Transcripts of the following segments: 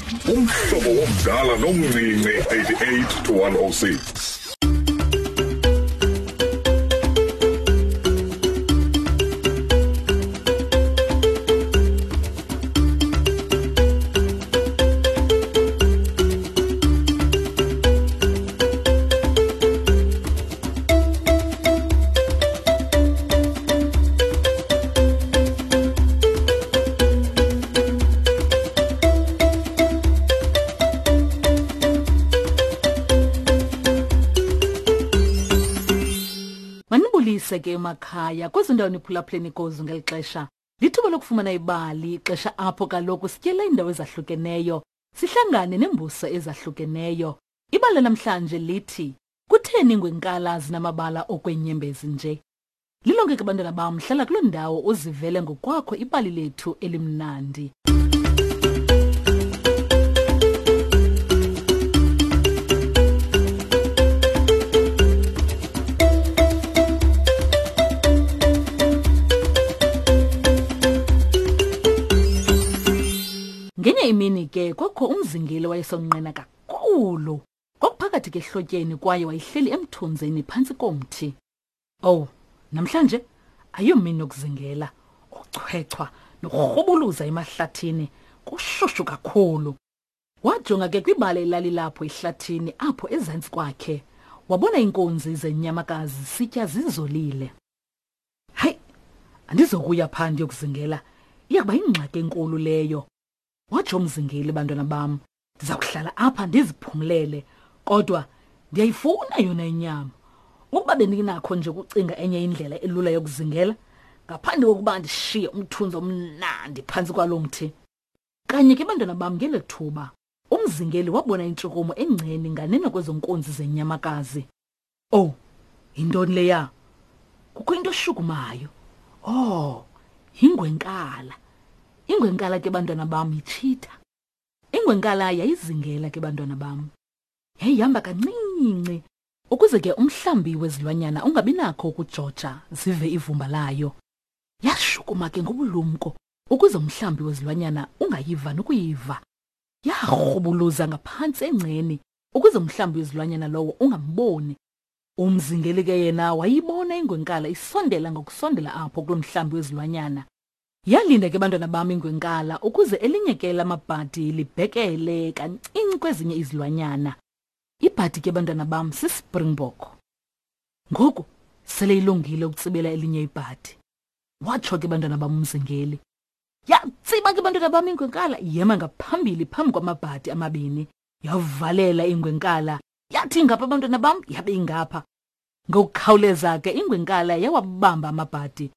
Umhlobo womdala nomncinci 88 to 106. Manibulise ke emakhaya kwezo ndawo niphulaphuleni kuzo ngeli xesha. Lithuba lokufumana ibali, ixesha apho kaloku sityela iindawo ezahlukeneyo, sihlangane neembuso ezahlukeneyo. Ibali namhlanje lithi Kutheni ingwenkala zinamabala okwenyembezi nje? Lilonke ke bantwana bam, hlala kuloo ndawo uzivele ngokwakho ibali lethu elimnandi. Ngenye imini ke kwakho umzingeli wayesonqena kakhulu. Kwakuphakathi ke ehlotyeni kwaye wayehleli emthunzini phantsi komthi. Owu, namhlanje ayomini yokuzingela, ukuchwechwa nokurhubuluza emahlathini kushushu kakhulu. Wajonga ke kwibala elalilapho ehlathini apho ezantsi kwakhe. Wabona iinkunzi zenyamakazi zisitya zizolile. Hayi, andizokuya phaa ndiyokuzingela, iya kuba yingxaki enkulu leyo. Watsho umzingeli, bantwana bam, ndiza kuhlala apha ndiziphumlele kodwa ndiyayifuna yona inyama ukuba bendinakho nje ukucinga enye indlela elula yokuzingela ngaphandle kokuba ndishiye umthunzi omnandi phantsi kwalo mthi kanye ke bantwana bam ngelo thuba umzingeli wabona intshukumo engceni nganeno kwezo nkunzi zenyamakazi owu yintoni leya kukho into eshukumayo oh yingwenkala ingwenkala ke bantwana bam yitshitha Ingwenkala yayizingela ke bantwana bam. Yayihamba kancinci ukuze ke umhlambi wezilwanyana ungabi nakho ukujoja zive ivumba layo. Yashukuma ke ngobulumko ukuze umhlambi wezilwanyana ungayiva nokuyiva. Yarhubuluza ngaphantsi engceni ukuze umhlambi wezilwanyana lowo ungamboni. Umzingeli ke yena wayibona ingwenkala isondela ngokusondela apho kulo mhlambi wezilwanyana. Yalinda ke bantwana bam ingwenkala ukuze elinye ke lamabhadi libhekele kancinci kwezinye izilwanyana. Ibhadi ke bantwana bam sispringbok. Ngoku sele ilungile ukutsibela elinye ibhadi. Watsho ke bantwana bam umzingeli. Yatsiba ke bantwana bam ingwenkala yema ngaphambili phambi kwamabhadi amabini. Yavalela ingwenkala yathi ngapha bantwana bam yabe ingapha. Ngokukhawuleza ke ingwenkala yawabamba amabhadi.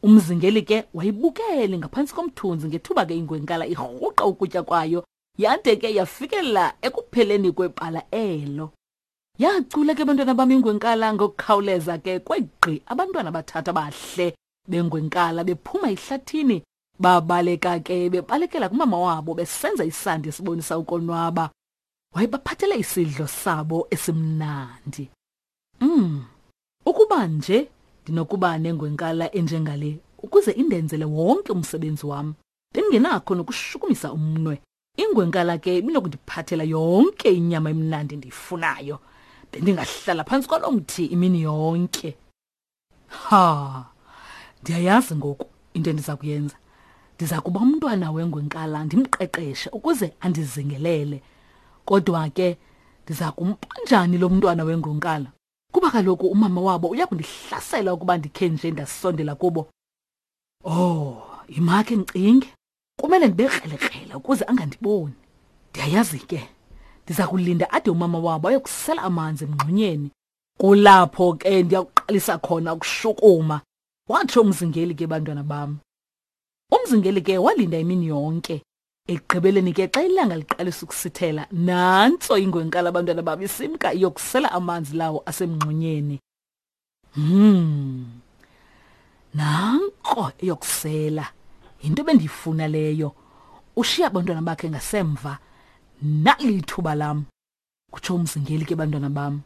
Umzingeli ke wayibukele ngaphantsi komthunzi ngethuba ke ingwenkala irhuqa ukutya kwayo yade ke yafikelela ekupheleni kwebala elo. Yacula ke bantwana bam ingwenkala ngokukhawuleza ke kwegqi abantwana abathathu abahle bengwenkala bephuma ehlathini babaleka ke bebalekela kumama wabo besenza isandi esibonisa ukonwaba. Wayebaphathele isidlo sabo esimnandi. Ukuba nje ndinokuba nengwenkala enjengale ukuze indenzele wonke umsebenzi wam, bendingenakho nokushukumisa umnwe. Ingwenkala ke ibinokundiphathela yonke inyama emnandi endiyifunayo. Bendingahlala phantsi kwalo mthi imini yonke. Ha! Ndiyayazi ngoku into endiza kuyenza. Ndiza kuba umntwana wengwenkala ndimqeqeshe ukuze andizingelele. Kodwa ke ndiza kumpa njani lo mntwana wengwenkala? Kuba kaloku umama wabo uya kundihlasela ukuba ndikhe nje ndasondela kubo. Oh, yimakhe ndicinge. Kumele ndibe krelekrele ukuze angandiboni. Ndiyayazi ke, ndiza kulinda ade umama wabo ayokusela amanzi emngxunyeni. Kulapho ke ndiyakuqalisa khona ukushukuma, watsho umzingeli ke bantwana bam. Umzingeli ke walinda imini yonke. Ekugqibeleni ke xa ilanga liqalisa ukusithela, nantso ingwenkala abantwana bam isimka iyokusela amanzi lawo asemngxunyeni. Nanko eyokusela. Yinto ebendiyifuna leyo. Ushiya abantwana bakhe ngasemva. Nali ithuba lam, kutsho umzingeli ke bantwana bam.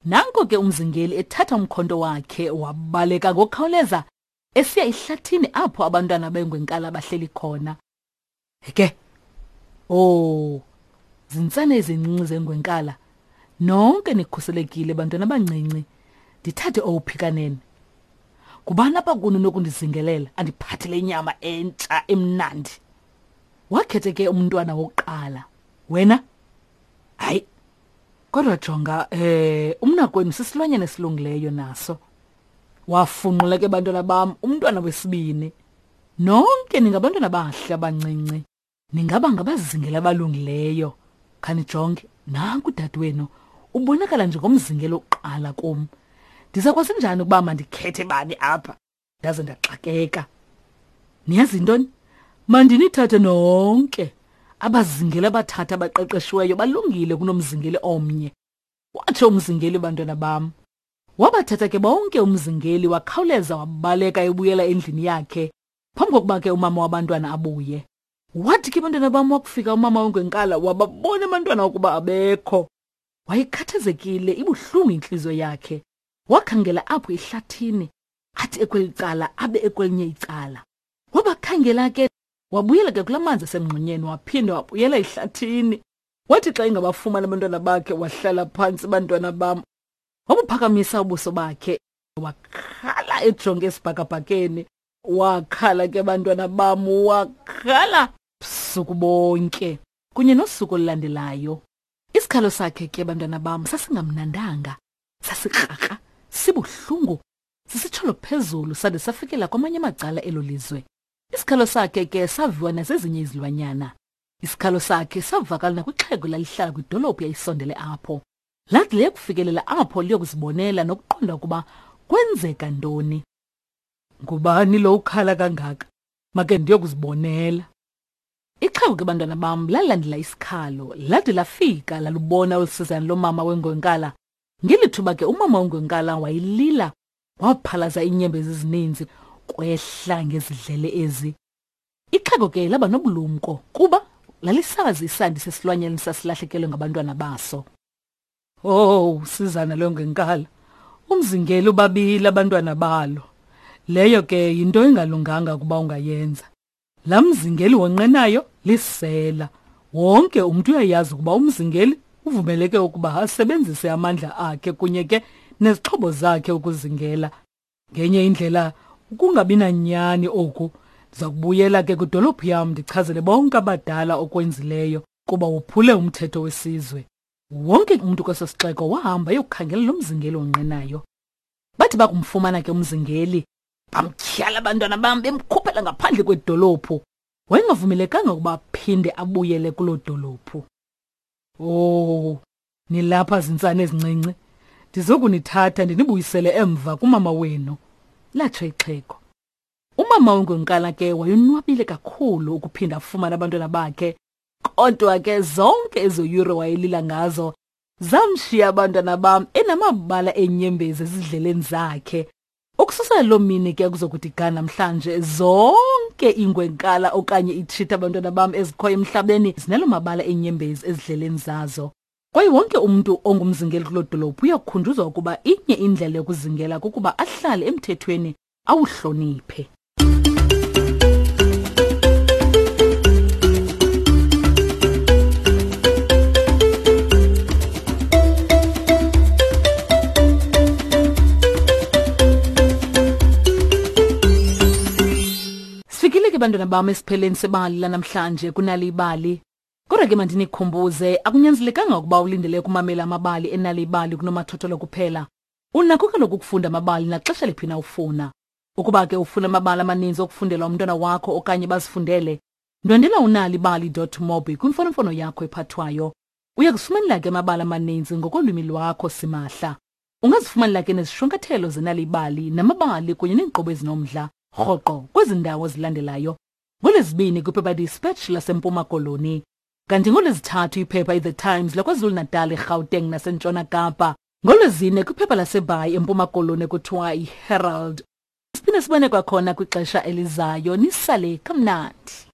Nanko ke umzingeli ethatha umkhonto wakhe wabaleka ngokukhawuleza esiya ehlathini apho abantwana bengwenkala bahleli khona. Ke. Oh, Zintsana ezincinci zengwenkala, nonke nikhuselekile bantwana abancinci. Ndithathe owuphi kanene? Ngubani apha kuni onokundizingelela andiphathele inyama entsha emnandi? Wakhethe ke umntwana wokuqala. Wena? Hayi. Kodwa jonga, eh umnakwenu sisilwanyana esilungileyo naso. Wafunqula ke bantwana bam umntwana wesibini. Nonke ningabantwana abahle abancinci. Ningaba ngabazingeli abalungileyo. Khanijonge, nanku udadewenu ubonakala njengomzingeli wokuqala kum. Ndiza kwazi njani ukuba mandikhethe bani apha? Ndaze ndaxakeka. Niyazi intoni? Mandinithathe nonke. Abazingeli abathathu abaqeqeshiweyo balungile kunomzingeli omnye. Watsho umzingeli, bantwana bam. Wabathatha ke bonke umzingeli wakhawuleza wabaleka ebuyela endlini yakhe phambi kokuba ke umama wabantwana abuye. Wathi ke bantwana bam wakufika umama wengwenkala wababona abantwana ukuba abekho. Wayekhathazekile ibuhlungu intliziyo yakhe. Wakhangela apho ehlathini athi ekweli cala abe ekwelinye icala. Wabakhangela ke wabuyela ke kula manzi asemngxunyeni waphinda wabuyela ehlathini. Wathi xa engabafumana abantwana bakhe wahlala phantsi bantwana bam. Wabuphakamisa ubuso bakhe wakhala ejonge esibhakabhakeni. Wakhala ke bantwana bam wakhala busuku bonke kunye nosuku olulandelayo. Isikhalo sakhe ke bantwana bam sasingamnandanga, sasikrakra, sibuhlungu, sisitsholo phezulu sade safikela kwamanye amacala elo lizwe. Isikhalo sakhe ke saviwa nazezinye izilwanyana. Isikhalo sakhe savakala nakwixhego lalihlala kwidolophu yayisondele apho. Lathi liyakufikelela apho liyokuzibonela nokuqonda ukuba kwenzeka ntoni. Ngubani lo ukhala kangaka? Make ndiyokuzibonela. Ixhego ke bantwana bam lalandela isikhalo, lade lafika lalubona olusizana lomama wengwenkala. Ngeli thuba ke umama wengwenkala wayilila, waphalaza iinyembezi ezininzi kwehla ngezidlele ezi. Ixhego ke laba nobulumko kuba lalisazi isandi sesilwanyana sasilahlekelwe ngabantwana baso. Oh, sizana lwengenkala. Umzingeli ubabile abantwana balo. Leyo ke yinto engalunganga ukuba ungayenza. La mzingeli wonqenayo lisela. Wonke umuntu uyayazi ukuba umzingeli uvumeleke ukuba asebenzise amandla akhe kunye ke nezixhobo zakhe ukuzingela. Ngenye indlela ukungabi nanyani oku ndiza kubuyela ke kwidolophu yam ndichazele bonke abadala okwenzileyo kuba wophule umthetho wesizwe. Wonke umntu kweso sixeko wahamba eyokukhangela lo mzingeli onqenayo. Bathi bakumfumana ke umzingeli, bamtyhala abantwana bam bemkhuphela ngaphandle kwedolophu. Wayengavumelekanga ukuba aphinde abuyele kuloo dolophu. Oh, nilapha zintsana ezincinci. Ndizokunithatha ndinibuyisele emva kumama wenu, latsho ixhego. Umama wengwenkala ke wayonwabile kakhulu ukuphinda afumane abantwana bakhe. Kodwa ke zonke ezo yure wayelila ngazo zamshiya abantwana bam enamabala eenyembezi ezidleleni zakhe. Ukususela loo mini ke kuzokuthi ga namhlanje zonke iingwenkala okanye iitshitha abantwana bam ezikhoyo emhlabeni zinalo mabala eenyembezi ezidleleni zazo. Kwaye wonke umntu ongumzingeli kuloo dolophu uyakukhunjuzwa ukuba inye indlela yokuzingela kukuba ahlale emthethweni awuhloniphe. Sifikile ke bantwana bam esipheleni sebali lanamhlanje kunali ibali. Kodwa ke mandinikhumbuze akunyanzelekanga ukuba ulindele ukumamela amabali enali ibali kunomathotholo kuphela. Unakho kaloku ukufunda amabali naxesha liphi na ufuna. Ukuba ke ufuna amabali amaninzi okufundela umntwana wakho okanye bazifundele, ndwendela unalibali.mobi kwimfonomfono yakho ephathwayo. Uya kuzifumanela ke amabali amaninzi ngokolwimi lwakho simahla. Ungazifumanela ke nezishwankathelo zenalibali namabali kunye neenkqubo ezinomdla rhoqo kwezi ndawo zilandelayo. NgoLwezibini kwiphepha iDispatch laseMpuma Koloni. Kanti ngoLwezithathu iphepha iThe Times laKwaZulu-Natal, eGauteng naseNtshona Kapa. NgoLwezine kwiphepha laseBhayi eMpuma Koloni ekuthiwa yiHerald. Siphinde sibone kwakhona kwixesha elizayo. Nisale kamnandi.